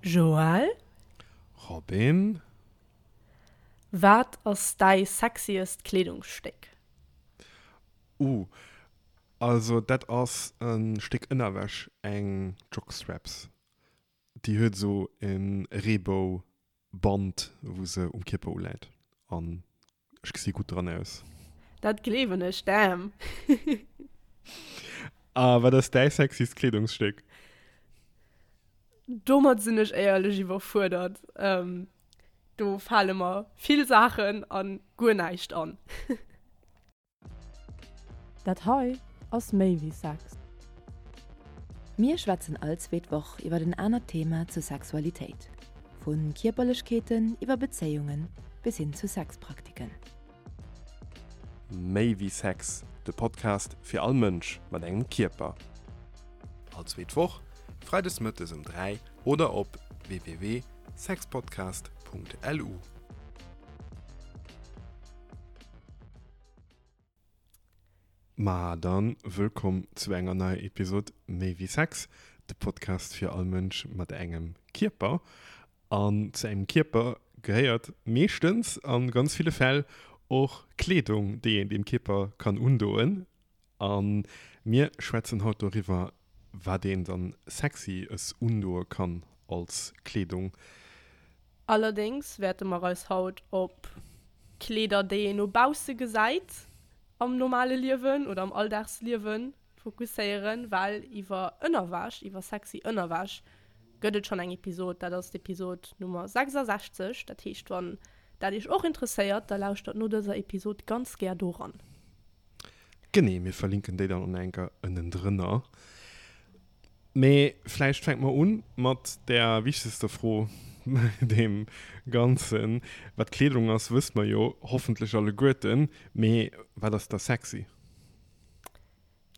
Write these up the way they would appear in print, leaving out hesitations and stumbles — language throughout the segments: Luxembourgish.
Joël? Robin? Wat ass däi sexiest Kleedungsstéck? Uh, also dat ass e Stéck Ënnerwäsch, eng Jockstraps. Déi huet esou e Reebou-Band, wou se um Kierper uläit an ech gesi gutt dran aus. Dat gleewen ech, damn! A wat ass däi sexiest Kleedungsstéck? Domat sinn ech éierlech iwwerfuerdert. Do fale mer vill Saachen an guer näischt an. Dat hei ass méi wéi Sex. Mir schwätzen all zweet Woch iwwer en anert Thema zur Sexualitéit, vu Kierperlechkeeten iwwer Bezéiunge bis hin zu Sexpraktiken. Méi wéi Sex, de Podcast fir all Mënsch mat engem Kierper. All zweet Woch, freides mëttes um 3 oder op www.sexpodcast.lu. Ma dann wëllkomm zu enger neier Episod Méi wéi Sex, de Podcast fir all Mënsch mat engem Kierper. An zu engem Kierper gehéiert meeschtens, an ganz ville Fäll, och Kleedung, déi een deem Kierper kann undoen. A mir schwätzen haut doriwwer, wat een dann sexy es undoe kann als Kleedung. Allerdéngs wäerte mer eis haut op Kleeder, déi een no bausse gesäit am normale Liewen oder am Alldagsliewen fokusséieren, well iwwer Ënnerwäsch, iwwer sexy Ënnerwäsch gëtt et schonn eng Episod, dat ass d'Episod Nummer 66. Dat heescht, wann dat iech och interesséiert, da lauschtert no dëser Episod ganz gär doran. Genee, mir verlinken déi dann och nach eng Kéier ënnendrënner. Mee vläicht fänke mer un mat där wichtegster Fro bei deem Ganzen. Wat Kleedung ass, wësse mer jo hoffentlech alleguerten. Mee wat ass da sexy?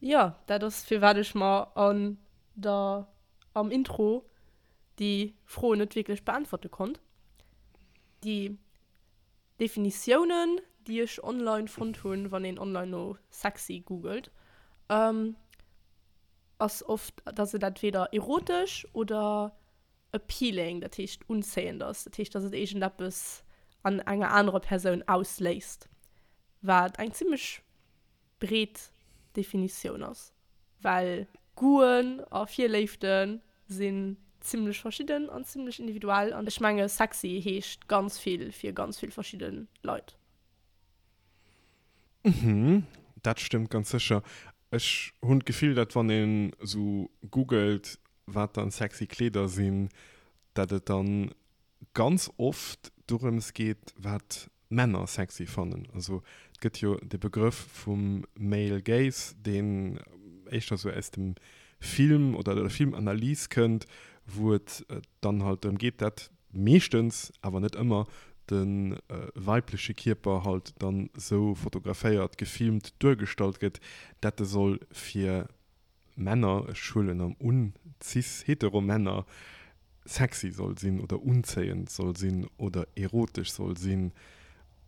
Jo, dat ass firwat ech mer an der am Intro déi Fro net wierklech beäntwerte konnt. Déi Definitiounen, déi ech online fonnt hunn, wann een online no sexy googelt, ass oft, dass et entweder erotesch oder appealing, dat heescht unzéiend ass. Dat heescht, dass et iergendeppes an enger anerer Persoun ausléist, wat eng zimmlech breet Definitioun ass, well Goûten a Virléifte sinn zimmlech verschidden an zimmlech individuell an ech menge sexy heescht ganz vill fir ganz vill verschidde Leit. Mhm, dat stëmmt ganz sécher. Ech hunn d'Gefill, dat wann een esou googelt, wat dann sexy Kleeder sinn, dat et dann ganz oft dorëms geet, wat Männer sexy fannen. Also et gëtt jo de Begrëff vum Male Gaze, deen éischter esou aus dem Film oder der Filmanalys kënnt, wou et dann halt drëm geet, dat meeschtens, awer net ëmmer, de weibleche Kierper halt dann esou fotograféiert, gefilmt, duergestallt gëtt, dat e soll fir Männer, ech huelen am un, cis-hetero Männer, sexy soll sinn oder unzéiend soll sinn oder erotesch soll sinn.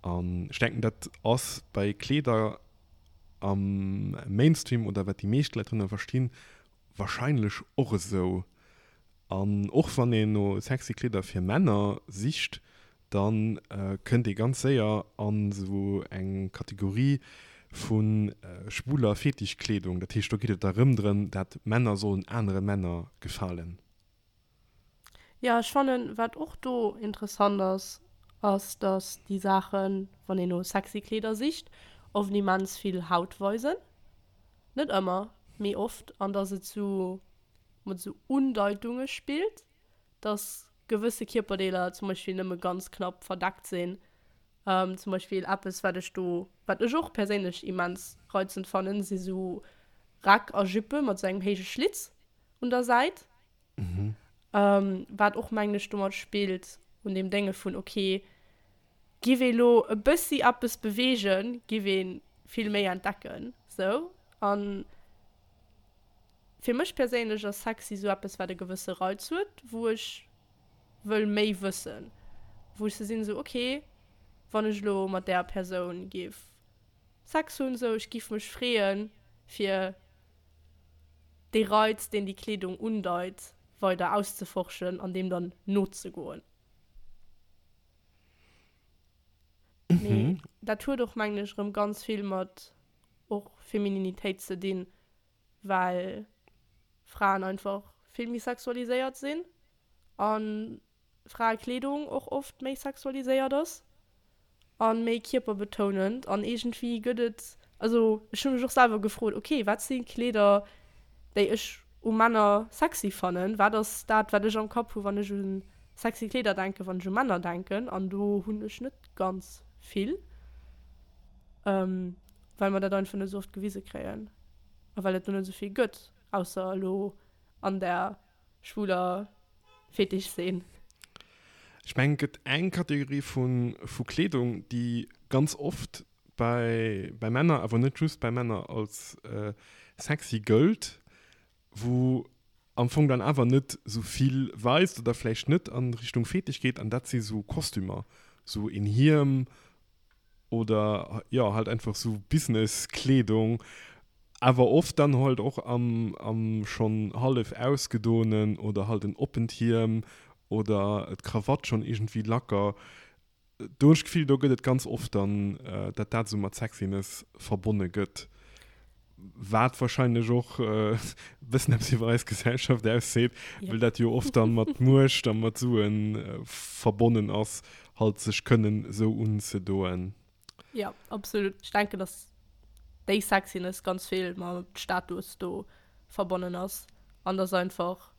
An ech denken, dat ass bei Kleeder am Mainstream oder wat déi meescht Leit drënner verstinn, wahrscheinlech och esou. An och wann een no sexy Kleeder fir Männer sicht, da kënnt ee ganz séier an esou eng Kategorie vu schwuler Fetischkleedung. Dat heescht, do geet et da rëm drëm, dat Männer sollen anere Männer gefalen. Jo, ech fannen, wat och do interessant ass, ass, dass déi Saachen, wann een no sexy Kleeder sicht, oft immens vill Haut weisen. Net ëmmer, mee oft. An dass et sou mat sou Undeitunge spillt, dass gewësse Kierperdeeler zum Beispill nëmme ganz knapp verdeckt sinn. Zum Beispill eppes, wat ech do, wat ech och perséinlech immens reizend fannen, si sou Räck a Juppe mat sou engem héije Schlitz un der Säit. Wat och, mengen ech, domat spillt, un deem Dénge vun, ok, giff ee lo e bëssi eppes beweegen, giff ee vill méi entdecken, sou. An Fir mech perséinlech ass sexy sou eppes wat e gewësse Reiz huet, wou ech wëll méi wëssen, wou ech sou sinn sou ok wann ech elo mat där Persoun giff Sex hunn sou ech giff mech freeën fir dee Reiz deen déi Kleedung undeit. weider auszeforschen an deem dann nozegoen. Mee dat huet och, mengen ech, erëm ganz vill mat och Femininitéit ze dinn, well Fraen einfach vill méi sexualiséiert sinn a Fraekleedung och oft méi sexualiséiert ass a méi kierperbetounend an iergendwéi gëtt et, also ech hu mech och selwer gefrot, ok wat si Kleeder déi ech u Männer sexy fannen, wat ass dat wat ech am Kapp hu wann ech u sexy Kleeder denken, wann ech u Männer denken an do hunn ech net ganz vill, well mer dat einfach net esou oft gewise kréien a well et do net esou vill gëtt, ausser elo an der schwuler Fetischszene. Ech mengen, et gëtt eng Kategorie vu Kleedung, déi ganz oft bei Männer, awer net just bei Männer, als sexy gëllt, wou am Fong dann awer net sou vill weist oder vläicht net an Richtung Fetisch geet, an dat si sou Kostümer, sou een Hiem oder jo halt einfach sou Business-Kleedung, awer oft dann halt och am am schonn hallef ausgedoenen oder halt en oppent Hiem oder d'Krawatt schonn iergendwéi lacker. Do hunn ech d'Gefill, do gëtt et ganz oft dann, datt dat esou mat Sexiness verbonne gëtt, wat wahrscheinlech och e bëssen eppes iwwer eis Gesellschaft ausseet, well dat jo oft dann mat Muecht a mat Sue verbonnen ass, halt sech kënnen esou unzedoen. Jo, absolut. Ech denken, datt déi Sexiness ganz vill mam Status do verbonnen ass an datt einfach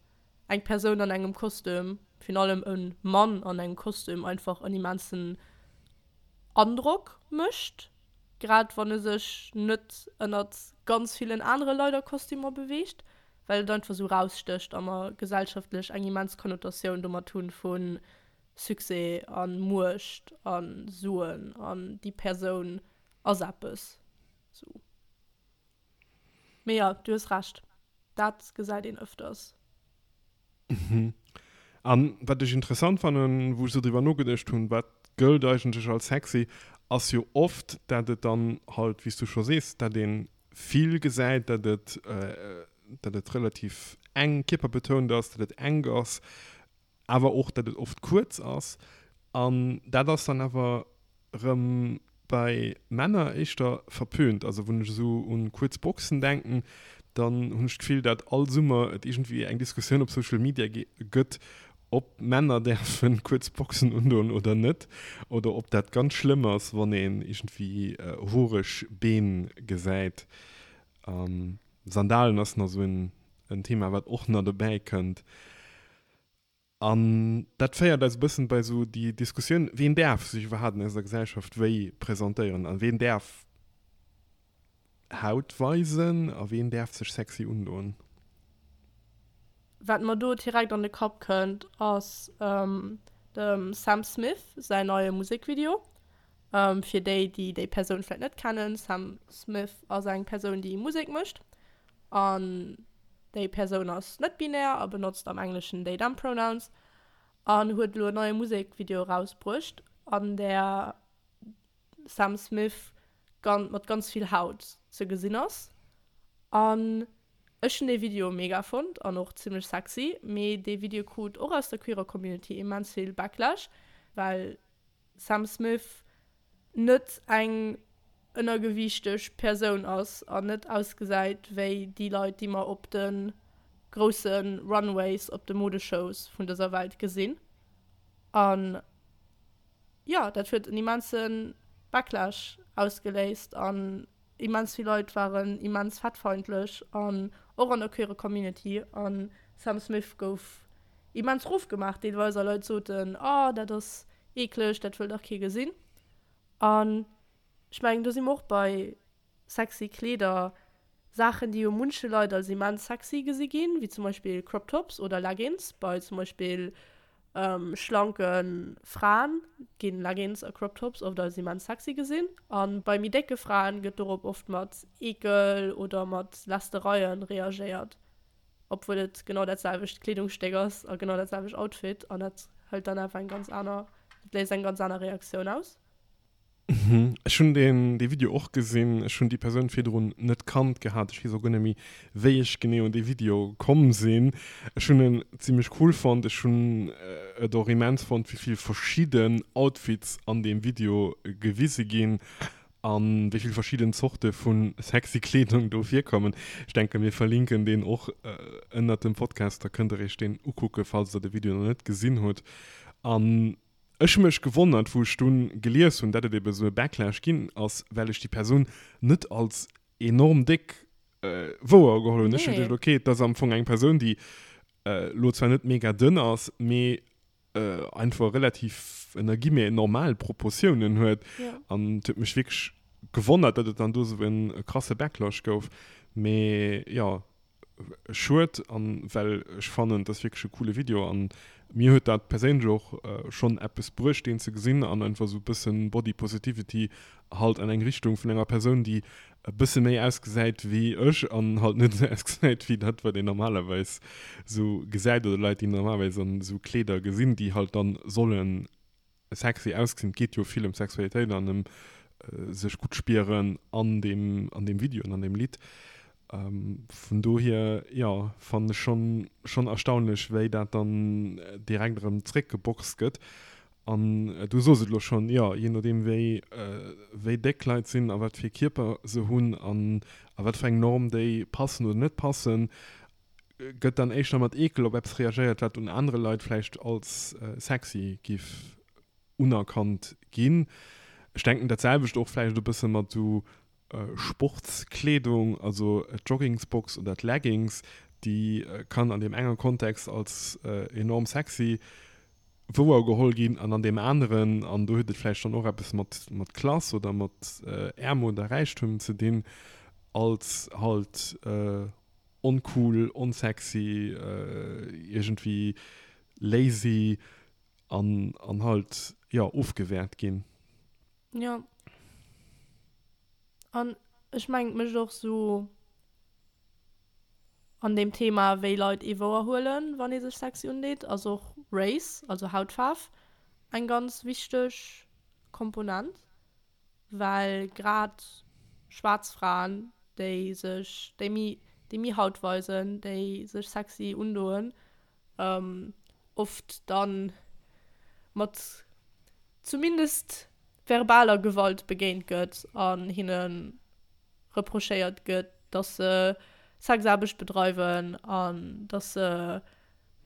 eng Persoun an engem Kostüm, virun allem e Mann an engem Kostüm, einfach en immensen Androck mécht, grad wann e sech net ënnert ganz villen anere Leit a Kostümer beweegt, well et einfach esou erausstécht a mer gesellschaftlech eng immens Konnotatioun domat hunn vu Succès a Muecht a Suen an déi Persoun ass eppes. Sou. Mee jo, du hues Recht, dat gesäit een ëfters. Mhm. An wat ech interessant fannen, wou ech sou driwwer nogeduecht hunn, wat gëllt eigentlech als sexy, ass jo oft, dat et dann halt, wéi s du scho sees, dat ee vill gesäit, dat et, dat et relativ eng kierperbetount ass, dat et enk ass, awer och dat et oft kuerz ass an dat ass dann awer rëm bei Männer éischter verpönt. Also wann ech esou un kuerz Boxen denken, dann hunn ech d'Gefill dat all Summer et iergendwéi eng Diskussioun op Social Media gëtt, ob Männer däerfen kuerz Boxen undoen oder net oder ob dat ganz schlëmm ass wann een iergendwéi horeg Been gesäit. Sandalen ass nach esou en Thema wat och nach dobäi kënnt. An dat féiert eis e bëssen bei esou déi Diskussioun, Ween däerf sech iwwerhaapt an eiser Gesellschaft wéi presentéieren a ween däerf Haut weisen a ween däerf sech sexy undoen? Wat mer do direkt an de Kapp kënnt, ass dem Sam Smith säin neie Musekvideo. Fir déi, déi déi Persoun vläicht net kennen, Sam Smith ass eng Persoun, déi Musek mécht. An déi Persoun ass net binär a benotzt am Engleschen they, them pronouns an huet elo en neie Musekvideo erausbruecht, an där Sam Smith mat ganz vill Haut ze gesinn ass. An ech hunn dee Video mega fonnt an och zimmlech sexy, mee dee Video krut och aus der queerer Community immens vill Backlash, well Sam Smith net eng ënnergewiichteg Persoun ass an net ausgesäit wéi déi Leit, déi mer op de grousse Runways op de Modeshows vun dëser Welt gesinn. An jo, dat huet en immense Backlash ausgeléist an immens vill Leit waren immens fettfeindlech an och an der queere Community. An Sam Smith gouf immens rofgemaach deelweis a Leit soten, oh dat ass eekleg, dat wëll dach kee gesinn. An ech mengen, do si mer och bei sexy Kleeder, Saachen, déi jo munche Leit als immens sexy gesi ginn, wéi zum Beispill Crop Tops oder Leggings. Bei zum Beispill schlanke Fraen ginn Leggings a Crop Tops oft als immens sexy gesinn. A bei méi décke Fraen gëtt dorop oft mat Eekel oder mat Lästereien reagéiert. Obwuel et genau dat selwecht Kleedungsstéck ass a genau dat selwecht Outfit an dat hëlt dann awer eng ganz aner, dat léist eng ganz aner Reaktioun aus. Ech hunn deen dee Video och gesinn. Ech hunn déi Persoun virdrun net kannt gehat. Ech weess och guer net méi, wéi ech genee un dee Video komm sinn. Ech hunn en zimmlech cool fonnt. Ech hunn et och immens fonnt, wéi vill verschidden Outfits an deem Video gewise ginn a wéi vill verschidden Zorte vu sexy Kleedung do virkommen. Ech denken, mir verlinken deen och ënnert dem Podcast, da kënnt der iech deen ukucken, falls der de Video nach net gesinn hutt. An Ech hu mech gewonnert, wou ech dunn gelies hunn, dat et eben esou e Backlash ginn ass, well ech déi Persoun net als enorm déck wouer geholl hunn. Ech hu geduecht, okay, et ass am Fong eng Persoun, déi elo zwar net mega dënn ass, mee einfach relativ, ënner Guillemets, normal Proportiounen huet. An et huet mech wierklech gewonnert, dat et dann do esou e krasse Backlash gouf. Mee jo. Schued an well ech fannen et ass wierklech e coole Video an mir huet dat perséinlech och schonn eppes bruecht deen ze gesinn an einfach esou bëssen Body Positivity halt an eng Richtung vun enger Persoun déi e bësse méi ausgesäit wéi ech an halt net esou ausgesäit wéi dat wat een normalerweis esou gesäit oder Leit déi normalerweis an esou Kleeder gesinn déi halt dann sollen sexy ausgesinn. Et geet jo vill ëm Sexualitéit an ëm sech gutt spieren an deem, an deem Video an an deem Lidd. Vun dohier, jo, fannen ech schonn, schonn erstaunlech, wéi dat dann direkt erëm zréckgeboxt gëtt. An du soos et elo schonn, jo, jee nodeem wéi, wéi déck Leit sinn a wat fir Kierper se hunn an a wat fir eng Norm déi passen oder net passen, gëtt dann éischter mat Eekel op eppes reagéiert, wat un anere Leit vläicht als sexy giff unerkannt ginn. Ech denken dat selwecht och vläicht e bësse mat esou Sportskleedung, also d'Joggingsbox oder d'Leggings, déi kann an deem enge Kontext als enorm sexy wouer geholl ginn an an deem aneren, an do huet et vläicht dann och eppes mat mat Klass oder mat Äermut a Räichtum ze dinn, als halt oncool, onsexy, iergendwéi lazy an an halt, jo, ofgewäert ginn. Jo. An ech mengen, et mécht och sou an deem Thema, wéi Leit ee wouer huelen, wann ee sech sexy undeet, ass och Race, also Hautfaarf, eng ganz wichteg Komponent. Well grad schwaarz Fraen, déi sech, déi méi, déi méi Haut weisen, déi sech sexy undoen, oft dann mat zumindest verbaler Gewalt begéint gëtt an hinne reprochéiert gëtt, dass se Sexaarbecht bedreiwen an dass se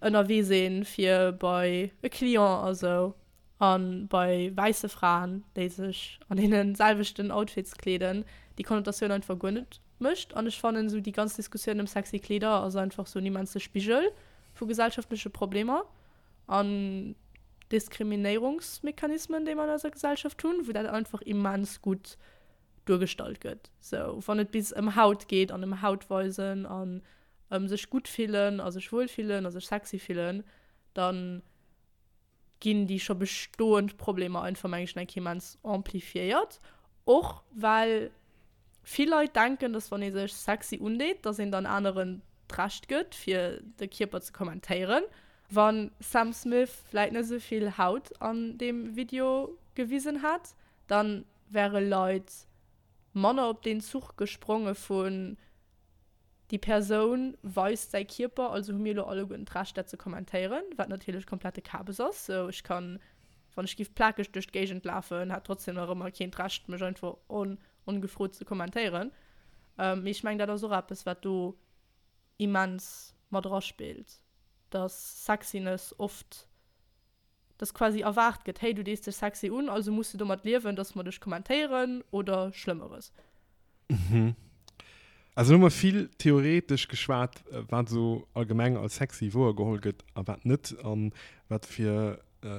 ënnerwee sinn fir bei e Client a sou. A bei wäisse Fraen, déi sech an deene selwechten Outfits kleeden, déi Konnotatioun einfach guer net mécht. An ech fannen esou déi ganz Diskussioun ëm sexy Kleeder ass einfach sou en immense Spigel vu gesellschaftleche Problemer an Diskriminéierungsmechanismen, déi mer an eiser Gesellschaft hunn, wou dat einfach immens gutt duergestallt gëtt. Sou wann et bis ëm Haut geet an ëm Hautweisen an ëm sech gutt fillen a sech wuel fillen a sech sexy fillen, dann ginn déi scho bestoend Problemer einfach, meng ech, nach eng Kéier immens amplifiéiert. Och well vill Leit denken, dass wann ee sech sexy undeet, dass een dann aneren d'Recht gëtt, fir de Kierper ze kommentéieren. Wa Sam Smith vläit net esou vill Haut an deem Video gewisen hätt, dann wäre Leit manner op deen Zuch gespronge vun Déi Persoun weist säi Kierper, also hu mir elo alleguerten d'Recht, dat ze kommentéieren, wat natierlech komplette Kabes ass. Sou, ech kann, wann ech giff plakeg duerch d'Géigend lafen, hätt trotzdem nach ëmmer keen d'Recht, mech einfach ongefrot ze kommentéieren. Mee ech mengen, dat ass och eppes, wat do immens mat eraspillt, dass Sexiness oft dass quasi erwaart gëtt, hey, du dees dech sexy un, also muss du domat liewen, dass mer dech kommentéieren oder Schlëmmeres. Mhm. Also elo hu mer vill theoretesch geschwat, wat esou allgemeng als sexy wouergeholl gëtt a wat net an wat fir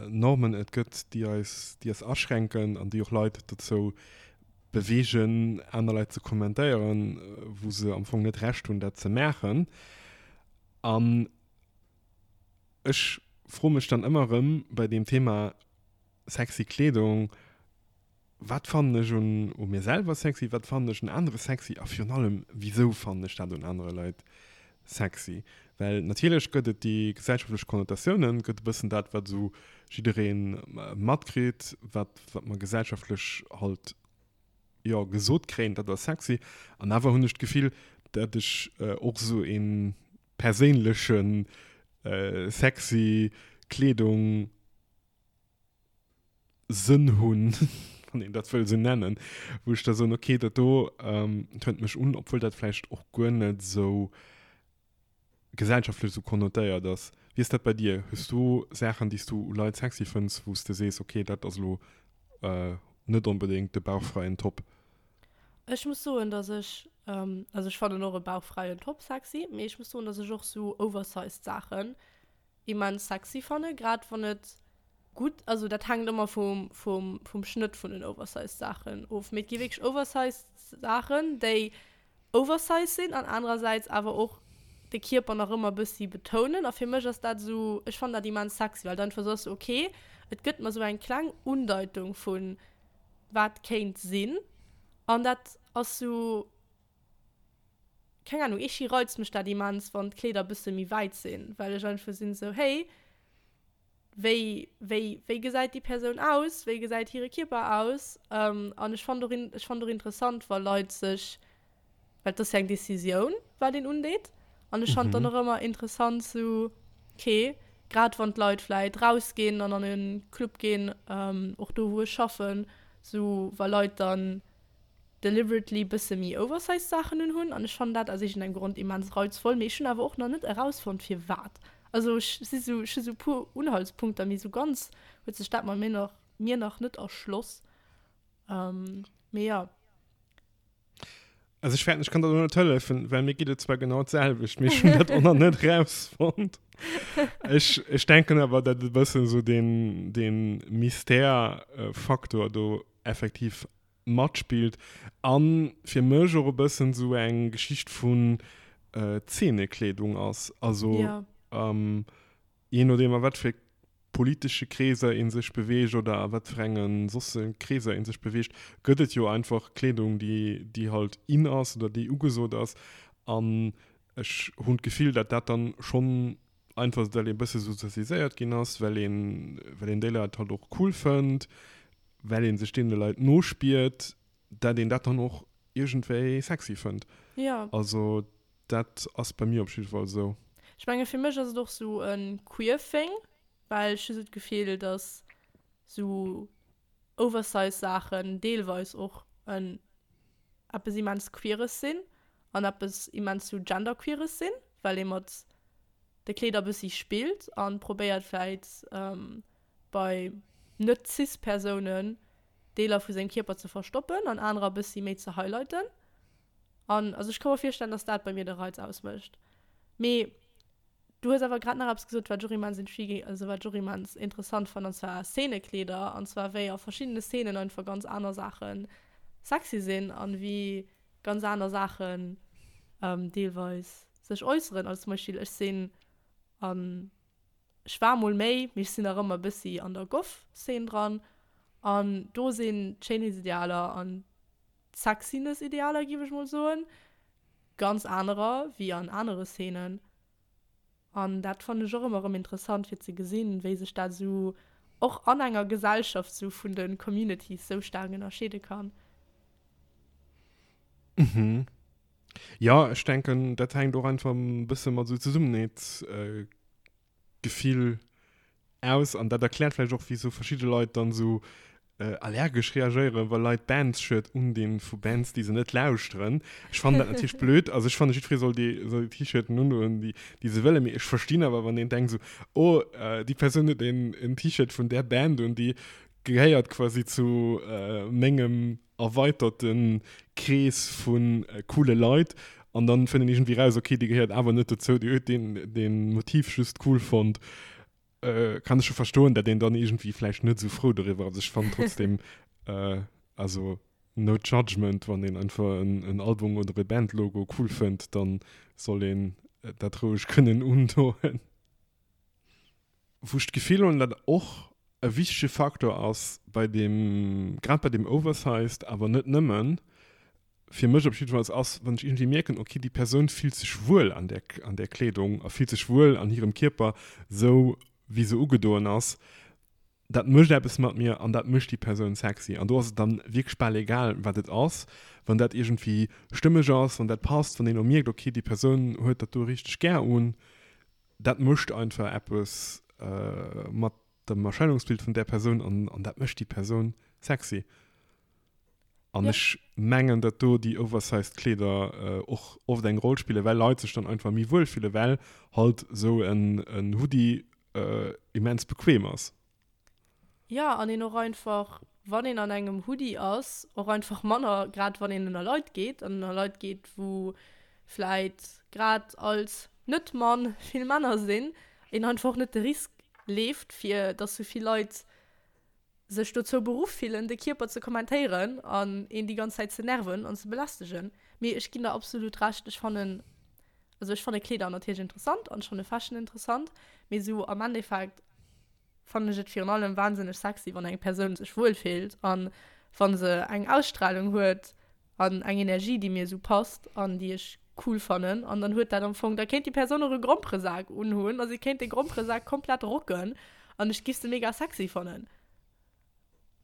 Normen et gëtt, déi eis, déi eis aschränken an déi och Leit dozou beweegen, aner Leit ze kommentéieren, wou se am Fong net Recht hunn, dat ze maachen. An Ech froe mech dann ëmmer erëm bei deem Thema sexy Kleedung, wat fannen ech un u mir selwer sexy, wat fannen ech un anere sexy a virun allem, wisou fannen ech dat un anere Leit sexy? Well natierlech gëtt et déi gesellschaftlech Konnotatiounen, gëtt e bëssen dat, wat esou jidderee matkritt, wat, wat mer gesellschaftlech halt, jo, gesot kréien, dat ass sexy. An awer hunn ech d'Gefill, dat ech och esou ee perséinleche sexy Kleedung, Sënn hunn, wann een dat wëll esou nennen, wou ech da soen, okay, dat do tönt mech un, obwuel dat vläicht och guer net esou gesellschaftlech esou konnotéiert ass. Wéi ass dat bei dir? Hues du Saachen, déi s du u Leit sexy fënns, wou s de sees, okay, dat ass elo net onbedéngt de bauchfräien Top? Ech muss soen, dass ech, also ech fannen och e bauchfräien Top sexy, mee ech muss soen, dass ech och esou oversized Saachen immens sexy fannen, grad wann et gutt, also dat hänkt ëmmer vum, vum, vum Schnëtt vun den oversized Saachen of, mee et gi wierklech oversized Saachen, déi oversized sinn an anerersäits awer och de Kierper nach ëmmer bëssi betounen a fir mech ass dat esou, ech fannen dat immens sexy, well et einfach esou ass, ok, et gëtt mer esou eng kleng Undeitung vun wat kéint sinn an dat ass esou. Keng Ahnung, ierghi reizt mech dat immens, wann d'Kleeder bësse méi wäit sinn, well ech einfach sinn esou, hey, wéi, wéi, wéi gesäit déi Persoun aus, wéi gesäit hire Kierper aus? An ech fannen och, ech fannen och interessant, wa Leit sech, well et ass jo eng Decisioun, wat een undeet, an ech fannen dann och ëmmer interessant sou, okay, grad wann d'Leit vläit rausginn an an e Club ginn, och do wou ech schaffen, sou wa Leit dann deliberately bësse méi oversized Saachen un hunn an ech fannen dat aus iergendengem Grond immens reizvoll, mee ech hunn awer och nach net erausfonnt firwat. Also ech si sou, ech hu sou puer Unhaltspunkter, mee sou ganz huet sech dat mat mir nach mir nach net erschloss. Mee jo. Also ech fäerten ech kann der do net hëllefen, well mir geet et zwar genau d'selwecht, mee ech hunn dat och nach net erausfonnt. Ech ech denken awer dat e bëssen sou deen deen Mystère-Faktor do effektiv matspillt an fir mech och e bëssen sou eng Geschicht vun Zeenekleedung ass. Also jee nodeem a wat fir politesche Kreeser ee sech beweegt oder a wat fir enge sosse Kreeser ee sech beweegt, gëtt et jo einfach Kleedung, déi déi halt in ass oder déi ugesot ass. An ech hunn d'Gefill, datt dat dann schonn einfach well ee bësse sozialiséiert ginn ass, well een well een déi Leit halt och cool fënnt, well ee sech deene Leit nospiert, dat een dat dann och iergendwéi sexy fënnt. Ja. Also dat ass bei mir op jidde Fall esou. Ech menge fir mech ass et och sou e queer thing, well ech hu sou d'Gefill, dass sou oversize Saachen deelweis och en eppes immens Queeres sinn an eppes immens sou genderqueeres sinn, well ee mat de Kleeder bëssi spillt an probéiert vläit bei net cis Persounen Deeler vu sengem Kierper ze verstoppen an anerer bëssi méi ze highlighten. An also ech ka mer virstellen, dass dat bei mir de Reiz ausmécht. Mee du hues awer grad nach eppes gesot, wat ech och immens intriguing, also wat ech och immens interessant fannen, an zwar Szenekleeder, an zwar wéi a verschiddene Szenen einfach ganz aner Saache sexy sinn an wéi ganz aner Saachen deelweis sech äusseren. Also zum Beispill ech sinn an ech war mol méi, mee ech sinn nach ëmmer e bëssi an der Goth-Szene dran an do sinn d'Schéinheetsidealer an d'Sexiness-Idealer, géif ech mol soen, ganz anerer wéi an anere Szenen. An dat fannen ech och ëmmer erëm interessant fir ze gesinn, wéi sech dat esou och an enger Gesellschaft sou vun de Communities sou staark ënnerscheede kann. Mhm. Jo, ech denken, dat hänkt och einfach e bësse mat esou Zesummenheetsgefill aus an dat erkläert vläicht och wisou verschidde Leit dann esou allergesch reagéieren, wa Leit Bands-Shirt undinn vu Bands, déi se net lauschteren. Ech fannen dat natierlech blöd, also ech fanne jiddweree soll déi soll déi T-Shirten undoen, déi déi se wëllen, mee ech verstinn awer wann een denkt esou, oh déi Persoun huet een en T-Shirt vun där Band un, déi gehéiert quasi zu mengem erweiterte Krees vu coole Leit an dann fënnt een iergendwéi raus, okay déi gehéiert awer net dozou, déi huet deen deen Motiv just cool fonnt. Kann ech scho verstoen, dat een dann iergendwéi vläicht net esou frou doriwwer ass. Ech fannen trotzdem, also no judgment, wann een einfach en Album oder e Bandlogo cool fënnt, dann soll een dat roueg kënnen undoen. Wou ech d'Gefill hunn, dat och e wichtege Faktor ass bei deem, grad bei deem Oversized, awer net nëmmen. Fir mech op jiddefalls ass, wann ech iergendwéi mierken, okay, déi Persoun fillt sech wuel an där, an där Kleedung a fillt sech wuel an hirem Kierper, sou wéi se ugedoen ass, dat mécht eppes mat mir an dat mécht déi Persoun sexy. An do ass et dann wierklech bal egal, wat et ass, wann dat iergendwéi stëmmeg ass, wann dat passt, wann een och mierkt, okay, déi Persoun huet dat do richteg gär un, dat mécht einfach eppes mat dem Erscheinungsbild vun där Persoun an, an dat mécht déi Persoun sexy. An ja. ech mengen, datt do déi oversized Kleeder och oft eng Roll spillen, well Leit sech dann einfach méi wuel fillen, well halt esou en, en Hoodie immens bequem ass. Ja, an een och einfach, wann een an engem Hoodie ass, och einfach manner, grad wann een ënner Leit geet, an ënner Leit geet, wou vläit grad als Net-Mann vill Männer sinn, een einfach och net de Risk leeft, fir datt sou vill Leit sech dozou beruff fillen, de Kierper ze kommentéieren an een déi ganz Zäit ze nerven an ze belästegen. Mee ech ginn der absolut Recht, ech fannen, also ech fanne Kleeder natierlech interessant an ech fanne Fashion interessant, mee sou am Endeffekt fannen ech et virun allem wahnsinneg sexy, wann eng Persoun sech wuel fillt an wa se eng Ausstrahlung huet an eng Energie, déi mir esou passt an déi ech cool fannen. An dann huet dat am Fong, da kéint déi Persoun och e Gromperesak unhunn a si kéint de Gromperesak komplett rocken an ech giff se mega sexy fannen.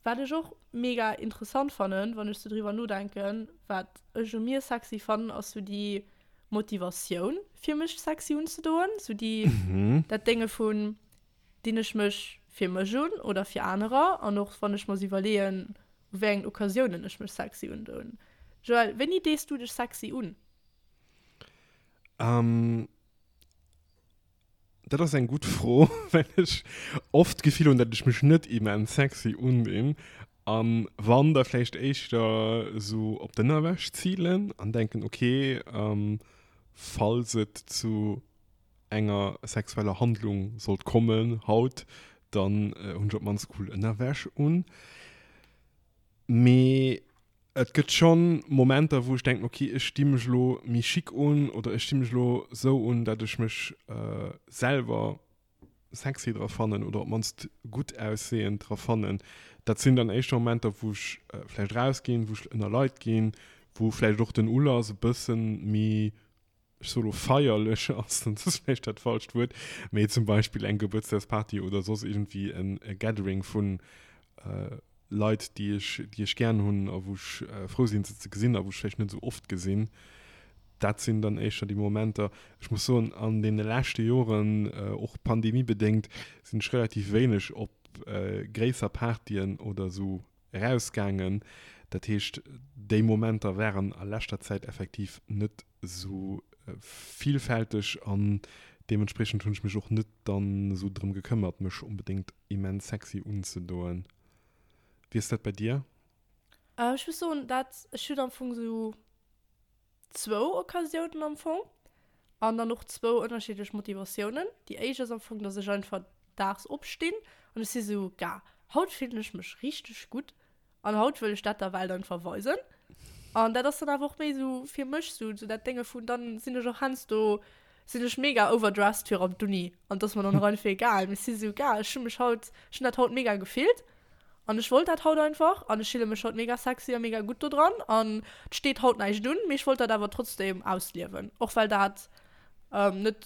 Wat ech och mega interessant fannen, wann ech sou driwwer nodenken, wat ech u mir sexy fannen, ass sou déi Motivatioun fir mech sexy unzedoen, sou déi, dat Dénge vun, dinn ech mech fir mech un oder fir anerer an och wann ech mer sou iwwerleeën, u wéi engen Occasiounen ech mech sexy undoen. Joël, wéini dees du dech sexy un? Ähm, dat ass eng gutt Fro, well ech oft d'Gefill hunn, datt ech mech net immens sexy undinn. An wann, da vläicht éischter esou op d'Ënnerwäsch zilen an denken, okay, falls et zu enger sexueller Handlung sollt kommen haut, dann hunn ech op d'mannst cool Ënnerwäsch un. Mee et gëtt schonn Momenter, wou ech denken, okay, ech di mech elo méi chic un oder ech di mech elo esou un, dat ech mech selwer sexy dra fannen oder op d'mannst gutt aussehend dra fannen. Dat sinn dann éischter Momenter, wou ech vläicht rausginn, wou ech ënner Leit ginn, wou vläicht och den Ulass e bëssen méi ech soe lo feierlech ass, dann ass vläicht dat falscht Wuert, mee zum Beispill eng Gebuertsdagsparty oder soss iergendwéi en Gathering vu Leit, déi ech, déi ech gären hunn a wou ech frou sinn, se ze gesinn a wou ech vläicht net esou oft gesinn. Dat sinn dann éischter déi Momenter. Ech muss soen, an deene leschte Joren, och pandemiebedéngt, sinn ech relativ wéineg op gréisser Partyen oder esou erausgaangen. Dat heescht, déi Momenter waren a leschter Zäit effektiv net esou villfälteg an deementspriechend hunn ech mech och net dann esou drëm gekëmmert, mech onbedéngt immens sexy unzedoen. Wéi ass dat bei dir? Ech muss soen, dat ech hunn am Fong esou zwou Occasiounen am Fong an dann och zwou ënnerschiddlech Motivatiounen. Déi éischt ass am Fong, dass ech einfach daags opstinn an ech si sou, Ga, haut fillen ech mech richteg gutt an haut wëll ech dat der Welt einfach weisen. An dat ass dann awer och méi sou fir mech sou, sou dat Dénge vun, dann sinn ech och heiansdo sinn ech mega overdressed fir op d'Uni an et ass mer dann och einfach egal. Mee ech si sou, Ga, ech hu mech haut, ech hunn dat haut mega gefillt An ech wollt dat haut einfach an ech fille mech haut mega sexy a mega gutt do dran an et steet haut näischt un, mee ech wollt dat awer trotzdem ausliewen, och well dat net,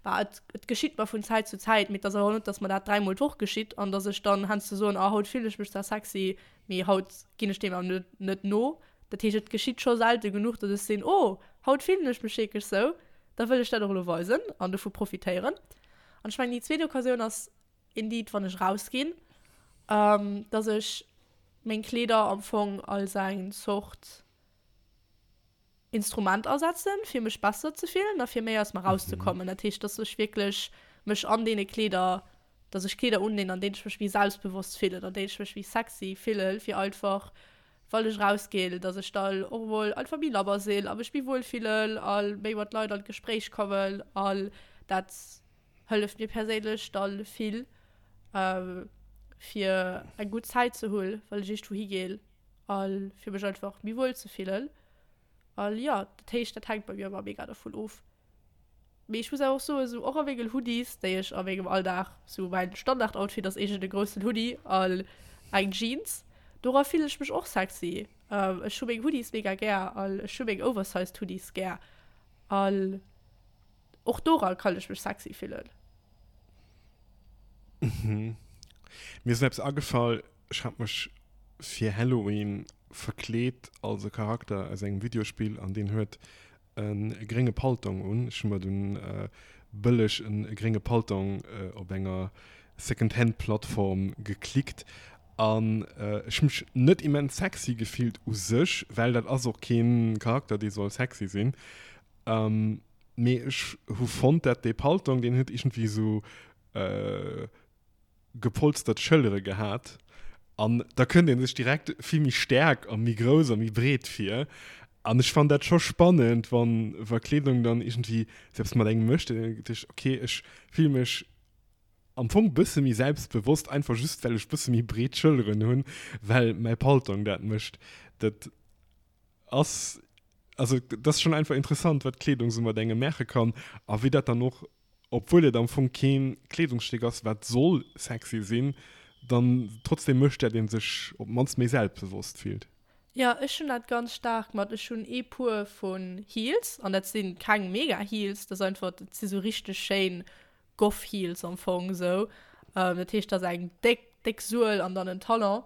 bah, et et geschitt mer vun Zäit zu Zäit, mee et ass awer och net, dass mer dat dräimol d'Woch geschitt an dass ech dann heiansdo soen, ah haut fillen ech mech zwar sexy, mee haut ginn ech deem awer net net no. Dat heescht, et geschitt scho selte genuch, dass ech sinn, oh haut fillen ech mech wierklech sou, da wëll ech dat och elo weisen an dovu profitéieren. An ech mengen déi zweet Occasioun ass Indeed, wann ech rausginn, dass ech meng Kleeder am Fong als eng Zort Instrument asetzen, fir mech besser ze fillen a fir méi aus mer rauszekommen. Dat heescht, dass ech wierklech mech an deene Kleeder, dass ech Kleeder undinn, an deenen ech mech méi selbstbewosst fillen, an deenen ech mech méi sexy fillen, fir einfach, wann ech rausginn, dass ech dann och emol einfach méi labber sinn a mech méi wuel fillen a méi mat Leit an d'Gespréich kommen an dat Hëlleft mir perséinlech dann vill fir eng gutt Zäit ze hunn, well ech iergendwou higeen a fir mech einfach méi wuel ze fillen. A jo, dat heescht, dat hänkt bei mir ëmmer mega dovun of. Mee ech muss awer och soen, esou och a menge Hoodies, déi ech a mengem Alldag, esou mäin Standardoutfit ass iergend e groussen Hoodie an eng Jeans, dora fillen ech mech och sexy. Ech hu meng Hoodies mega gär an ech hu meng oversized Hoodies gär an och dora kann ech mech sexy fillen. Mhm. Mir ass eppes agefall, ech hat mech fir Halloween verkleet als e Charakter aus engem Videospill an deen huet e grénge Paltong un. Ech hu mer dunn bëlleg e grénge Paltong op enger Secondhand-Plattform geklickt an ech hu mech net immens sexy gefillt u sech, well dat ass och kee Charakter, dee soll sexy sinn. Mee ech hu fonnt, dat dee Paltong, deen huet iergendwéi esou gepolstert Schëllere gehat an da kënnt ee sech direkt vill méi staark a méi grouss a méi breet vir. An ech fannen dat scho spannend, wann wa Kleedung dann iergendwéi sou eppes mat engem mécht, dann denkt ech, okay, ech fille mech am Fong bësse méi selbstbewosst, einfach just well ech bësse méi breet Schëlleren hunn, well mäi Paltong dat mécht. Dat ass, also dat ass schonn einfach interessant, wat Kleedung sou mat engem maache kann a wéi dat dann och obwuel et am Fong keen Kleedungsstéck ass wat soll sexy sinn, dann trotzdem mécht dat een sech op d'mannst méi selbstbewosst fillt. Jo, ech hunn dat ganz staark mat, ech hunn ee Puer vun Heels an dat si keng mega Heels, dat ass einfach, dat si sou richteg schéin Goth Heels am Fong sou, dat heescht dat ass eng déck déck Suel an dann en Talon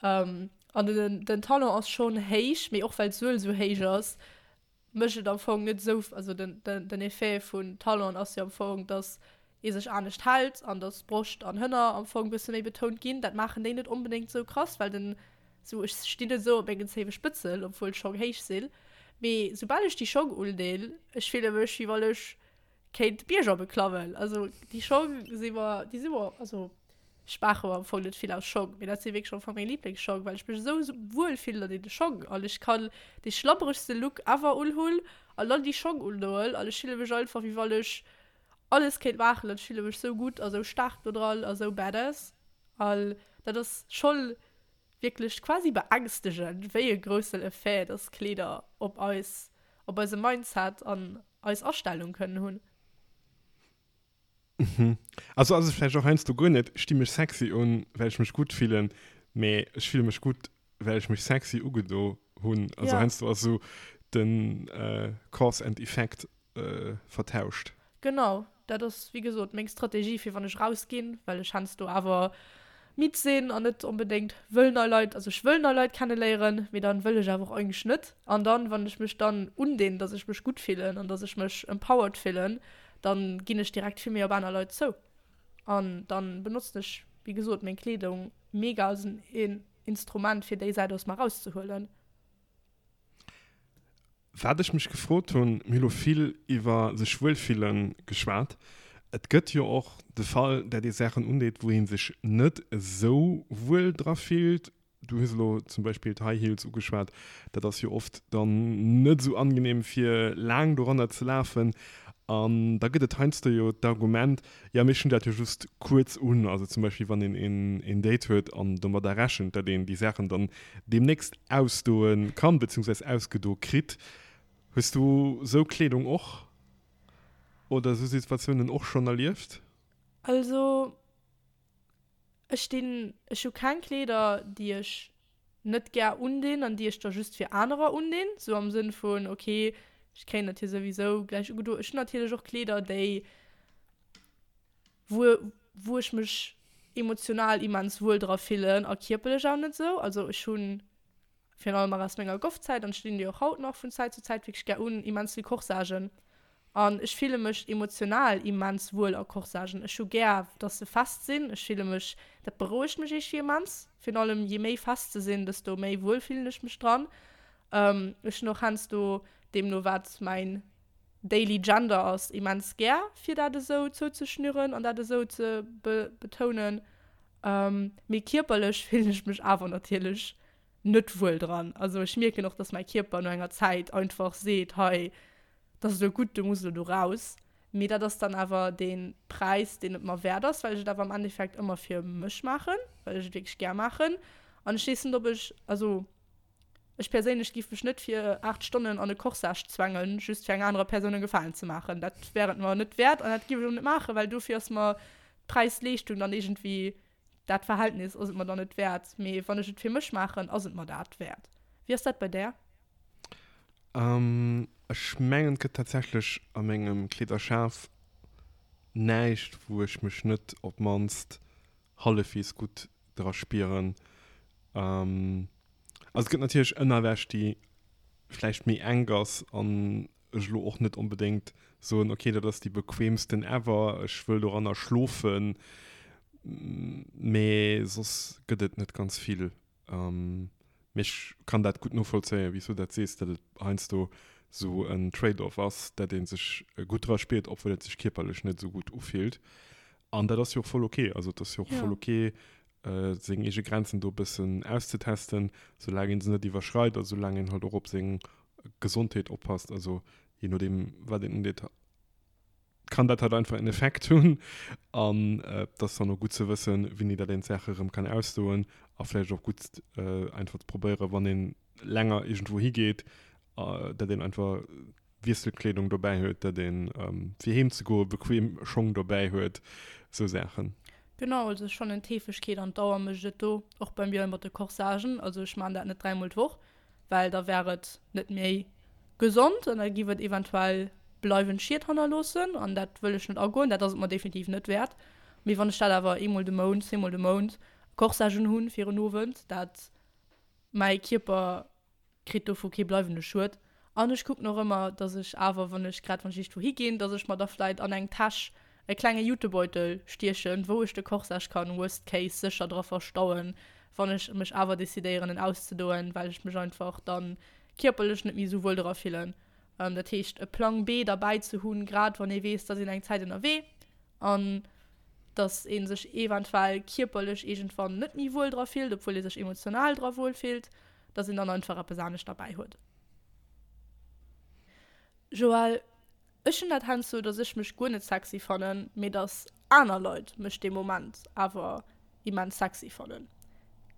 an den den Talon ass schonn héich, mee och well d'Suel sou héich ass, mécht et am Fong net esou, also den, den, den Effet vun Talon ass jo am Fong, dass ee sech anescht hält an dass Broscht an Hënner am Fong bësse méi betount ginn. Dat maachen déi net onbedéngt esou krass, well den, sou ech stinn net esou op mengen zéiwe Spëtzel, obwuel d'Schong héich sinn, mee soubal ech déi Schong undinn, ech fille mech wéi wann ech kéint Bierger beklammen. Also déi Schong si mer, déi si mer, also ech maache mer am Fong net vill aus Schong, mee dat si wierklech am Fong meng Liblingsschong, well ech mech esou wuel fillen an deene Schong an ech kann dee schlabberegste Look ever unhunn an dann déi Schong undoen an ech fille mech einfach wéi wann ech alles kéint maachen an ech fille mech esou gutt a sou staark do dran a sou badass an dat ass schonn wierklech quasi beängstegend, wéi e groussen Effet dass Kleeder op eis, op eise Mindset an eis Astellung kënnen hunn. Mhm. Also ass et vläicht och heiansdo guer net, ech di mech sexy un, well ech mech gutt fillen, mee ech fille mech gutt, well ech mech sexy ugedo hunn. Also heiansdo ass esou den Cause and Effect vertauscht. Genau, dat ass wéi gesot meng Strategie fir wann ech raus ginn, well ech heiansdo awer midd sinn an net onbedéngt wëll nei Leit, also ech wëll nei Leit kenneléieren, mee dann wëll ech awer och eigentlech net. An dann, wann ech mech dann undinn, dass ech mech gutt fillen an dass ech mech empowered fillen, dann ginn ech direkt vill méi op aner Leit zou. An dann benotzen ech wéi gesot meng Kleedung mega als en Instrument fir déi Säit aus mer rauszehuelen. Wat ech mech gefrot hunn, mir hu lo vill iwwer sech wuel fille geschwat. Et gëtt jo och de Fall, dat ee Saachen undeet, wou ee sech net esou wuel dra fillt. Du hues elo zum Beispill d'High Heels ugeschwat. Dat ass jo oft dann net esou angenehm, fir laang doranner ze lafen. An da gëtt et heiansdo jo d'Argument, jo mee ech hunn dat jo just kuerz un. Also zum Beispill wann een een Date huet an domadder rechent, datt een déi Saachen dann deemnächst ausdoe kann, beziehungsweis ausgedo kritt. Hues du sou Kleedung och oder sou Situatiounen och schonn erlieft? Also ech dinn, ech hu keng Kleeder déi ech net gär undinn an déi ech da just fir anerer undinn, sou am Sënn vun ok ech kréien dat jo souwisou gläich ugedo. Ech hunn natierlech och Kleeder déi wou wou ech mech emotional immens wuel dra fillen a kierperlech awer net sou. Also ech hunn virun allem nach aus menger Goffzäit, an ech dinn déi och haut nach vun Zäit zu Zäit wierklech gär un, immens vill Corsagen. An ech fille mech emotional immens wuel a Corsagen. Ech hu gär, dass se fest sinn. Ech fille mech, dat berouegt mech iergendwéi immens. Virun allem je méi fest se sinn, desto méi wuel fillen ech mech dran. Ech hunn och heiansdo, deemno wat mäin daily Gender ass, immens gär, fir dat esou zouzeschnüren an dat esou ze betounen. Mee kierperlech fillen ech mech awer natierlech net wuel dran. Also ech mierken och, dass mäi Kierper no enger Zäit einfach seet, hei, dat ass elo gutt, du muss elo do raus. Mee dat ass dann awer dee Präis, deen et mer wäert ass, well ech et awer am Endeffekt ëmmer fir mech maachen, well ech et wierklech gär maachen. An ech weess net, ob ech, also ech perséinlech géif mech net fir 8 Stonnen an e Corsage zwängen, just fir enger anerer Persoun e Gefalen ze maachen. Dat wär et mer net wäert an dat géif ech och net maachen, well dofir ass mer d'Präis-Leeschtung dann iergendwéi, dat Verhältnis ass et mer dann net wäert. Mee wann ech et fir mech maachen, ass et mer dat wäert. Wéi ass dat bei där? Ech mengen et gëtt tatsächlech a mengem Kleederschaf näischt wou ech mech net op d'mannst hallefwees gutt dra spieren. Also et gëtt natierlech Ënnerwäsch déi vläicht méi enk ass an ech elo och net onbedéngt soen, ok dat ass déi bequeemsten ever, ech wëll doranner schlofen, mee soss gëtt et net ganz vill. Mee ech kann dat gutt novollzéien, wéi s du dat sees, datt et heiansdo esou en Trade-off ass, datt ee sech gutt dra spiert, obwuel et sech kierperlech net esou gutt ufillt. An dat ass jo och voll ok. Also et ass jo och voll ok, seng eege Grenzen do e bëssen auszetesten, soulaang ee se net iwwerschreit a soulaang een halt och op seng Gesondheet oppasst. Also jee nodeem, wat een undeet. kann dat halt einfach en Effekt hunn an et ass dann och gutt ze wëssen, wéini dat een d'Saache erëm kann ausdoen a vläicht och gutt einfach ze probéieren, wann een länger iergendwou higeet, dat een einfach Wiesselkleedung dobäi huet, dat een fir heem ze goe bequem Schong dobäi huet, esou Saachen. Genau, also ech fannen d'Heefegkeet an d'Dauer mécht et do, och bei mir mat de Corsagen, also ech maan dat net dräimol d'Woch, well da wär et net méi gesond an da giff et eventuell bleiwend Schied hannerloossen an dat wëll ech net agoen, dat ass et mer definitiv net wäert. Mee wann ech dat awer eemol de Mount, zweemol de Mount Corsage unhunn fir en Owend, dat mäi Kierper kritt dovu kee bleiwende Schued An ech kucken och ëmmer, dass ech awer, wann ech, grad wann ech iergendwou higinn, dass ech mer da vläit an eng Täsch e klenge Jutebeutel stiechen, wou ech de Corsage kann worst case sécher dra verstauen, wann ech mech awer decidéieren en auszedoen, well ech mech einfach dann kierperlech net méi esou wuel dra fillen. Dat heescht e Plang B derbäi ze hunn, grad wann ee weess, dass een eng Zäit ënnerwee an dass ee sech eventuell kierperlech iergendwann net méi wuel dra fillt, obwuel ee sech emotional dra wuel fillt, dass een dann einfach eppes anescht derbäi huet. Joël, Ech hunn dat heiansdo, dass ech mech guer net sexy fannen, mee dass aner Leit mech dee Moment awer immens sexy fannen.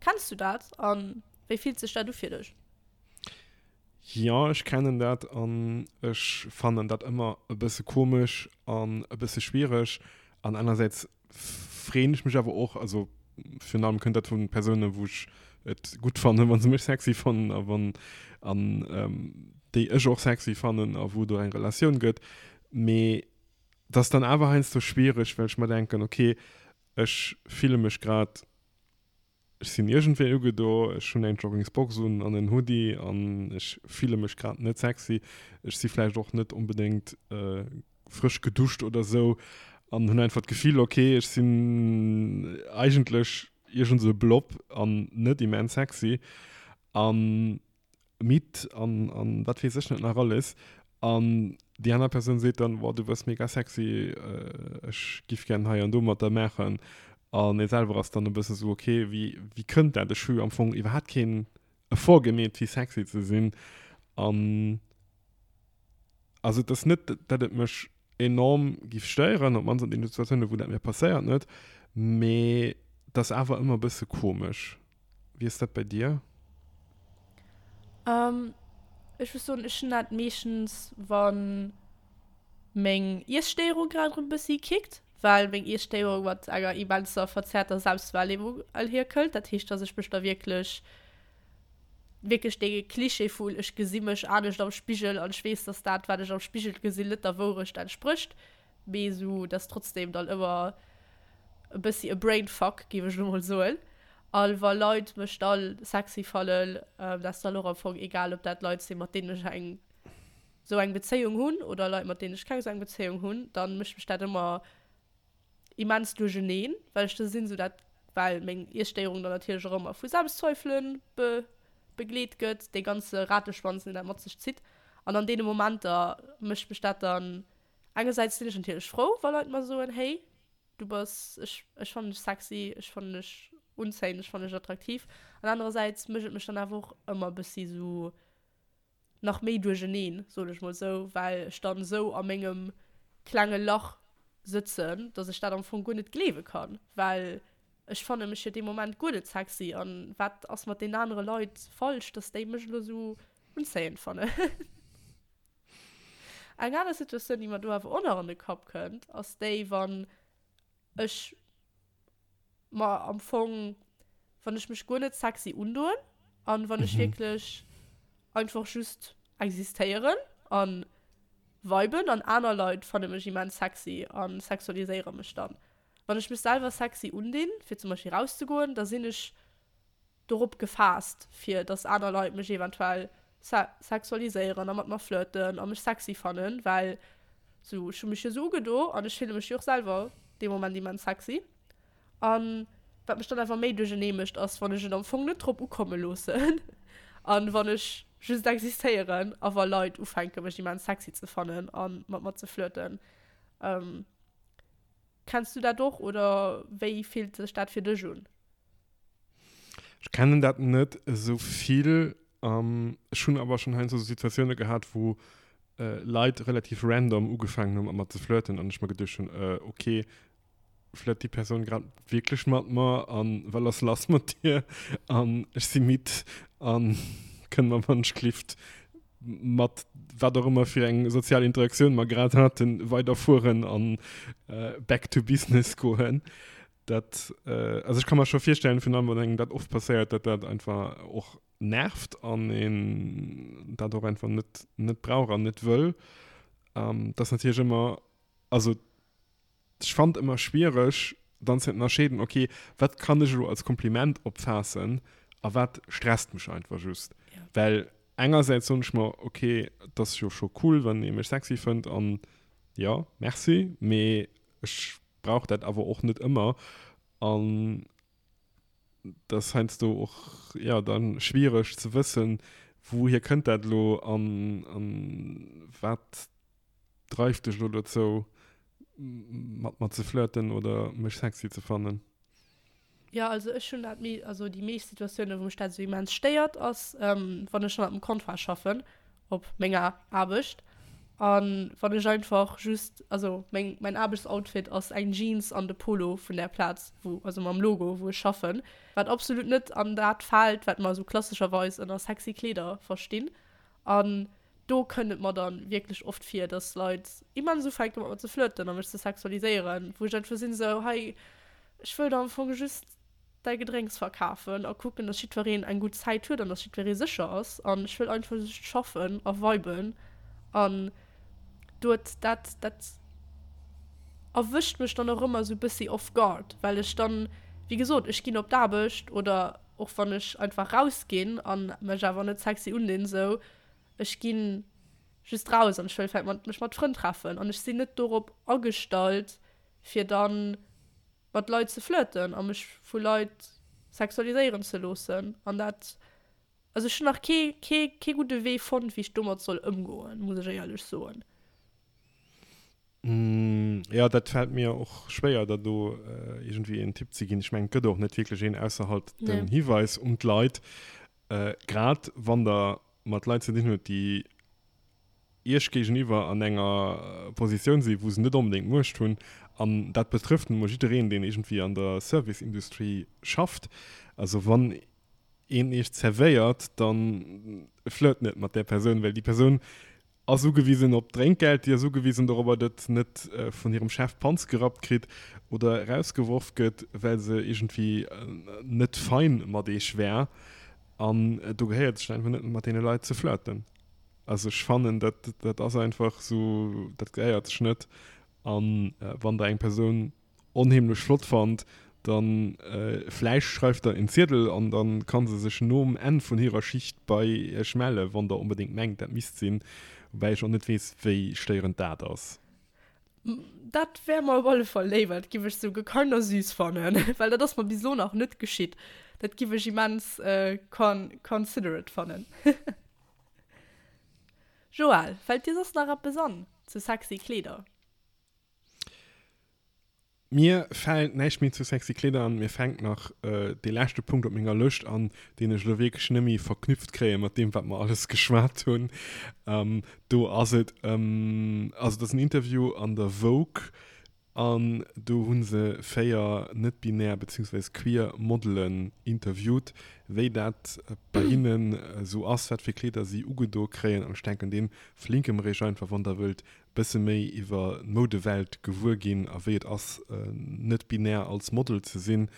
Kenns du dat a wéi fillt sech dat u fir dech? Jo, ech kennen dat an ech fannen dat ëmmer e bësse komesch an e bësse schwiereg. An anersäits freeën ech mech awer och, also virun allem kënnt dat vu Persounen, wou ech et gutt fannen, wa se mech sexy fannen a wann an déi ech och sexy fannen a wou do eng Relatioun gëtt. Mee et ass dann awer heiansdo schwiereg, well ech mer denken, okay, ech fille mech grad Ech sinn iergendwéi ugedo, ech hunn eng Joggingsbox un an en Hoodie an ech fille mech grad net sexy. Ech si vläicht och net onbedéngt frësch geduscht oder sou an hunn einfach d'Gefill, ok, ech sinn eigentlech iergend sou e Blob an net immens sexy. An midd an, an wat weess ech net nach alles. An déi aner Persoun seet dann, Boah, du bass mega sexy, ech giff gären hei an do mat der maachen. An ee selwer ass dann e bësse sou, okay, wéi, wéi kënnt dat? Ech hu jo am Fong iwwerhaapt keen Effort gemeet, fir sexy ze sinn. An also et ass net, datt et mech enorm giff stéieren, op d'mannst an deene Situatiounen, wou dat mir passéiert, net, mee et ass awer ëmmer e bësse komesch. Wéi ass dat bei dir? Ähm, ech muss soen, ech hunn dat meeschtens, wann meng Iesstéierung grad erëm e bëssi kickt, well meng Iesstéierung mat enger immenser verzerrter Selbstwahrnehmung einhierkëllt. Dat heescht, dass ech mech da wierklech, wierklech dee Klischee vun ech gesi mech anescht am Spigel an ech weess, dass dat, wat ech am Spigel gesinn, net der Wourecht entsprécht, Mee esou, dat ass trotzdem dann ëmmer e bëssi e Brainfuck, géif ech elo mol soen. A wa Leit mech da sexy fannen, dat ass dann och am Fong egal, ob dat Leit sinn, mat deenen ech eng esou eng Bezéiung hunn oder Leit, mat deenen ech keng esou eng Bezéiung hunn, da mécht mech dat ëmmer immens duercheneen, well ech da sinn, esou dat, well meng Iesstéierung dann natierlech och ëmmer vu Selbstzweifelen be begleet gëtt, dee ganze Rateschwanz, deen dat mat sech zitt. An an deene Momenter mécht mech dat dann Engersäits sinn ech natierlech frou, wa Leit mer soen, hey, du bass, ech, ech fannen dech sexy, ech fannen dech unzéiend, ech fannen dech attraktiv. An anerersäits mécht et mech dann awer och ëmmer e bëssi sou nach méi duercheneen, soen ech mol sou, well ech dann sou a mengem klenge Lach sëtzen, dass ech dat am Fong guer net gleewe kann, well ech fanne mech jo dee Moment guer net sexy an wat ass mat deenen anere Leit falsch, dass déi mech elo sou unzéiend fannen. Eng aner Situatioun, déi mer do awer och nach an de Kapp kënnt, ass déi, wann ech mer am Fong, wann ech mech guer net sexy undoen an wann ech wierklech. einfach just existéieren a viben an aner Leit fanne mech immens sexy a sexualiséiere mech dann. Wann ech mech selwer sexy undinn, fir zum Beispill rauszegoen, da sinn ech dorop gefaasst, fir dass aner Leit mech eventuell sexualiséieren a mat mer flirten a mech sexy fannen, well sou, ech hu mech jo sou ugedo an ech fille mech jo och selwer dee Moment immens sexy. An wat mech dann awer méi duerchernee mécht, ass wann ech et am Fong net drop ukomme loossen an wann ech just existéieren a wa Leit ufänke mech immens sexy ze fannen a mat mer ze flirten. Kenns du dat och oder wéi fillt sech dat fir dech un? Ech kennen dat net esou vill. Ech hunn awer schonn heiansdo sou Situatioune gehat, wou Leit relativ random ugefaangen hu mat mer ze flirten an ech mer geduecht hunn, ok, flirt déi Persoun grad wierklech mat mer an wat ass lass mat dir an ech si midd an kënne mer wann ech glift mat wat och ëmmer fir eng sozial Interaktioun mer grad haten weiderfueren an back to business goen. Dat, also ech ka mer scho virstellen, virun allem wann engem dat oft passéiert, datt dat einfach och nervt an een dat och einfach net net brauch an net wëll. Dat ass natierlech ëmmer, also ech fannt ëmmer schwiereg dann ze ënnerscheeden, okay, wat kann ech elo als Kompliment opfaassen a wat stresst mech einfach just. Ja. Well engersäits soen ech mer, okay, et ass jo scho cool, wann ee mech sexy fënnt an jo, merci, mee ech brauch dat awer och net ëmmer an dat ass heiansdo och jo dann schwiereg ze wëssen, wouhier kënnt dat elo an an wat dreift dech elo dozou mat mer ze flirten oder mech sexy ze fannen. Jo, also ech hunn dat méi, also déi meescht Situatiounen, wou mech dat esou immens stéiert, ass, wann ech hannert dem Comptoir schaffen op menger Aarbecht an wann ech einfach just, also meng, mäin Aarbechtsoutfit ass eng Jeans an de Polo vun där Plaz, wou, also mam Logo, wou ech schaffen, wat absolut net an dat fält, wat mer esou klassescherweis ënner sexy Kleeder verstinn. An do kënnt et mer dann wierklech oft vir, dass Leit immens ufänken mat mer ze flirten a mech ze sexualiséieren, wou ech einfach sinn esou, hei, ech wëll der am Fong just däi Gedrénks verkafen a kucken, dass jiddwereen eng gutt Zäit huet an dass jiddweree sécher ass an ech wëll einfach just schaffen a viben an dort dat dat erwëscht mech dann och ëmmer esou e bëssi off guard, well ech dann, wéi gesot, ech ginn op d'Aarbecht oder och wann ech einfach rausginn an mech awer net sexy undinn sou, ech ginn just raus an ech wëll vläit mat mech mat Frënn treffen an ech sinn net dorop agestallt fir dann mat Leit ze flirten a mech vu Leit sexualiséieren ze loossen an dat, also ech hunn nach kee kee kee gudde Wee fonnt wéi ech domat soll ëmgoen, muss ech éierlech soen. Jo, dat fält mir och schwéier, der do iergendwéi een Tipp ze ginn. Ech mengen, et gëtt och net wierklech een, ausser halt den Hiweis un d'Leit, grad wann der mat Leit ze dinn hutt, déi Iech géigeniwwer an enger Positioun sinn, wou se net onbedéngt Muecht hunn. An dat betrëfft nun emol jiddereen, deen iergendwéi an der Service-Industrie schafft. Also wann een Iech zerwéiert, da flirt net mat där Persoun, well déi Persoun ass ugewisen op Drénkgeld, déi ass ugewisen dorobber, datt se net vun hirem Chef d'Panz gerappt kritt oder erausgeworf gëtt, well se iergendwéi net fein mat eech wär. An do gehéiert sech einfach net mat deene Leit ze flirten. Also ech fannen, dat dat ass einfach esou, dat gehéiert sech net. A wann Der eng Persoun onheemlech flott fannt, dann vläicht schreift der en Ziedel an dann kann se sech nom Enn vun hirer Schicht bei iech mellen, wann der onbedéngt mengt dat misst sinn, woubäi ech och net weess wéi stéierend dat ass. Dat wär mer op alle Fall léiwer, dat giff ech souguer kinda süß fannen, well dat ass mer bis elo nach net geschitt. Dat giff ech immens considerate fannen. Joël, fällt dir soss nach eppes an zu sexy Kleeder? Mir fält näischt méi zu sexy Kleeder an. Mir fänkt nach dee leschte Punkt op menger Lëscht an, deen ech elo wierklech net méi verknüpft kréie mat deem, wat mer alles geschwat hunn. Do ass et ëm, also et ass en Interview an der Vogue an do hu se 4 net-binär beziehungsweise queer Modelen interviewt, wéi dat bei hinnen esou ass, wat fir Kleeder si ugedo kréien. An ech denken, dee verlinke mer iech einfach, wann der wëllt bësse méi iwwer d'Moudewelt gewuer ginn a wéi et ass net binär als Model ze sinn,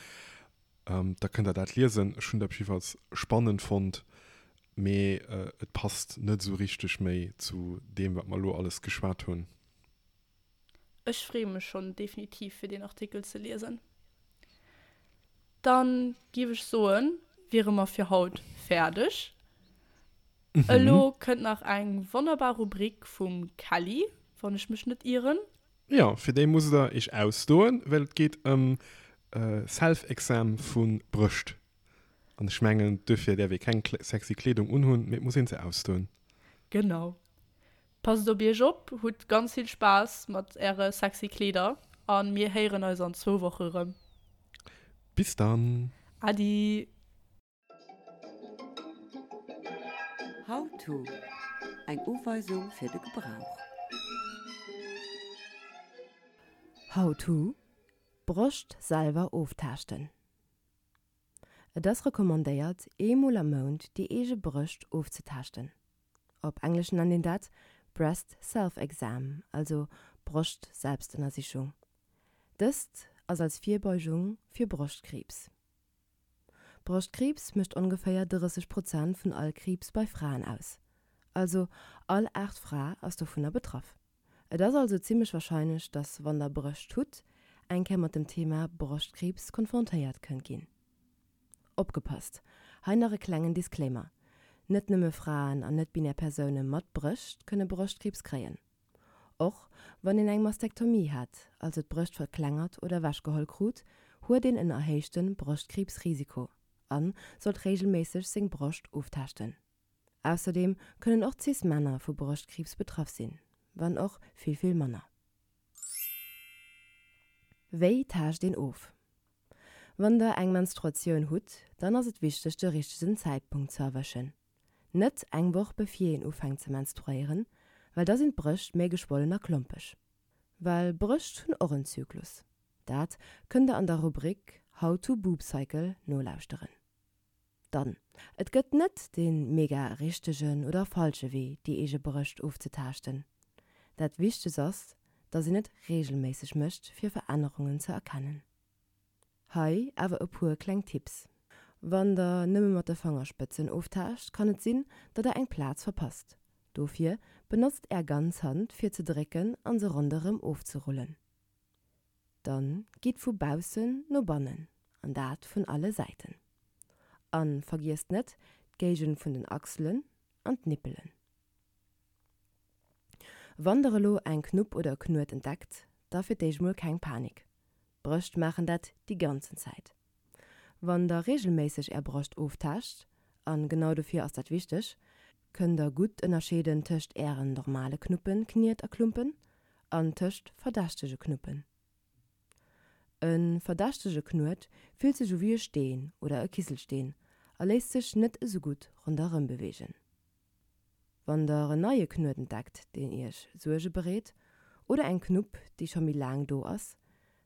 da kënnt der dat liesen. Ech hunn dat jiddefalls spannend fonnt. Mee et passt net esou richteg méi zu deem, wat mer elo alles geschwat hunn. Ech freeë mech schonn definitiv fir deen Artikel ze liesen. Dann giff ech soen, wiere mer fir haut fäerdeg. Elo kënnt nach eng wonnerbar Rubrik vum Kelly, wann ech mech net ieren. Jo, fir déi musst der iech ausdoen, well et geet ëm Self-Exam vu Brëscht. An ech mengen, duerfir däerf ee keng sexy Kleedung unhunn, mee et muss een se ausdoen. Genau. Passt op iech op, hutt ganz vill Spaass mat äre sexy Kleeder a mir héieren eis an zwou Woche rëm. Bis dann! Adi! How to, Eng Uweisung fir de Gebrauch. How to, Broscht selwer oftaaschten. Et ass recommandéiert, eemol am Mount déi eege Brëscht ofzetaaschten. Op Englesch nennt een dat Breast Self-Exam, also Broscht-Selbstënnersichung. Dëst ass als Virbeugung fir Broschtkriibs. Broschtkriibs mécht ongeféier 30 Prozent vun all Kriibs bei Fraen aus. Also all aacht Fra ass dovunner betraff. Et ass also zimmlech warscheinlech, dass wann der Brëscht hutt, eng Kéier mat dem Thema Broschtkriibs konfrontéiert kënnt ginn. Opgepasst, hei nach e klengen Disclaimer, Net nëmme Fraen an net-binär Persoune mat Brëscht kënne Broschtkriibs kréien. Och wann een eng Mastektomie hat, also d'Brëscht verklengert oder ewechgeholl krut, huet een en erhéichte Broschtkriibsrisiko a sollt reegelméisseg seng Broscht oftaaschten. Ausserdeem kënnen och Cis-Männer vu Broschtkriibs betraff sinn, wann och vill, vill manner. Wéi taascht een of? Wann der eng Menstruatioun hutt, dann ass et wichteg de richtegen Zäitpunkt ze erwëschen. Net eng Woch bevir een ufänkt ze menstruéieren, well da sinn d'Brëscht méi geschwollen a klompeg. Well Brëscht hunn och en Zyklus. Dat kënnt der an der Rubrik How to Boob Cycle nolauschteren. Dann, et gëtt net dee mega richtegen oder falsche Wee déi eege Brëscht ofzetaaschten. Dat Wichtegst ass, dass een et reegelméisseg mécht fir Verännerungen ze erkennen. Hei awer e puer kleng Tipps. Wann der nëmme mat de Fangerspëtzen oftaascht, kann et sinn, datt der eng Plaz verpasst. Dofir benotzt är ganz Hand fir ze drécken an se ronderëm ofzerullen. Dann gitt vu baussen no bannen, an dat vun alle Säiten. An vergiesst net d'Géigend vun den Achselen an d'Nippelen. Wann der elo eng Knupp oder e Knuet entdeckt, da fir d'éischt mol keng Panik. D'Brëscht maachen dat déi ganzen Zäit. Wann der regelméisseg är Broscht oftaascht, an genau dofir ass dat wichteg, kënnt der gutt ënnerscheeden tëscht ären normale Knuppen, Kniet a Klumpen an tëscht verdächtege Knuppen. E verdächtege Knuet fillt sech u wéi e Steen oder e Kiselsteen a léisst sech net esou gutt ronderëm beweegen. Wann der en neie Knuet entdeckt, deen iech Suerge bereet, oder eng Knupp, déi scho méi laang do ass,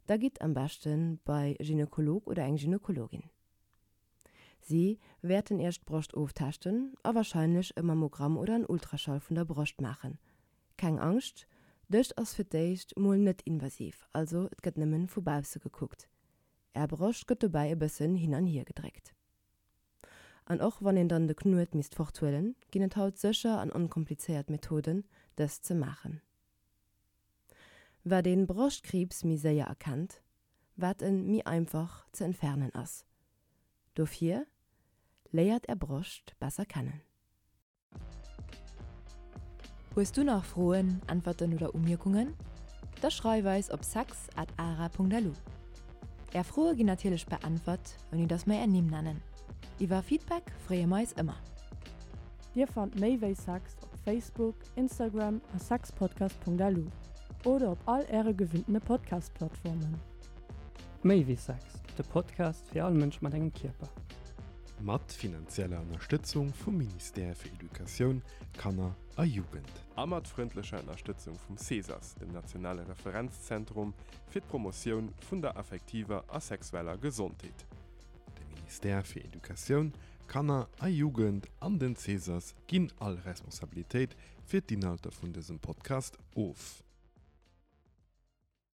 da gitt am beschte bei e Gynekolog oder eng Gynekologin. Si wäerten iech d'Broscht oftaaschten a warscheinlech e Mammogramm oder en Ultraschall vun der Broscht maachen. Keng Angscht, dëst ass fir d'éischt mol net invasiv, also et gëtt nëmmen vu bausse gekuckt. Är Broscht gëtt dobäi e bëssen hin an hier gedréckt. An och wann een dann de Knuet misst forthuelen, ginn et haut sécher an onkomplizéiert Methoden, dëst ze maachen. Wat een Broschtkriibs méi séier erkennt, wat en méi einfach ze entfernen ass. Dofir, léiert är Broscht besser kennen. Hues du nach Froen, Äntwerten oder Umierkungen? Da schreif eis op sex at ara.lu. Är Froe ginn natierlech beäntwert, ouni dass mer är Nimm nennen. Iwwer Feedback freeë mer eis ëmmer. Dir fannt méi wéi Sex op Facebook, Instagram a sexpodcast.lu oder op all äre gewinntene Podcast-Plattformen. Méi wéi Sex, de Podcast fir all Mënsch mat engem Kierper. Mat finanzieller Ënnerstëtzung vum Ministère fir Educatioun, Kanner a Jugend. A mat frëndlecher Ënnerstëtzung vum CESAS, dem nationale Referenzzentrum fir d'Promotioun vun der affektiver a sexueller Gesondheet. De Ministère fir Educatioun, Kanner a Jugend an den CESAS ginn all Responsabilitéit fir d'Inhalter vun dësem Podcast of.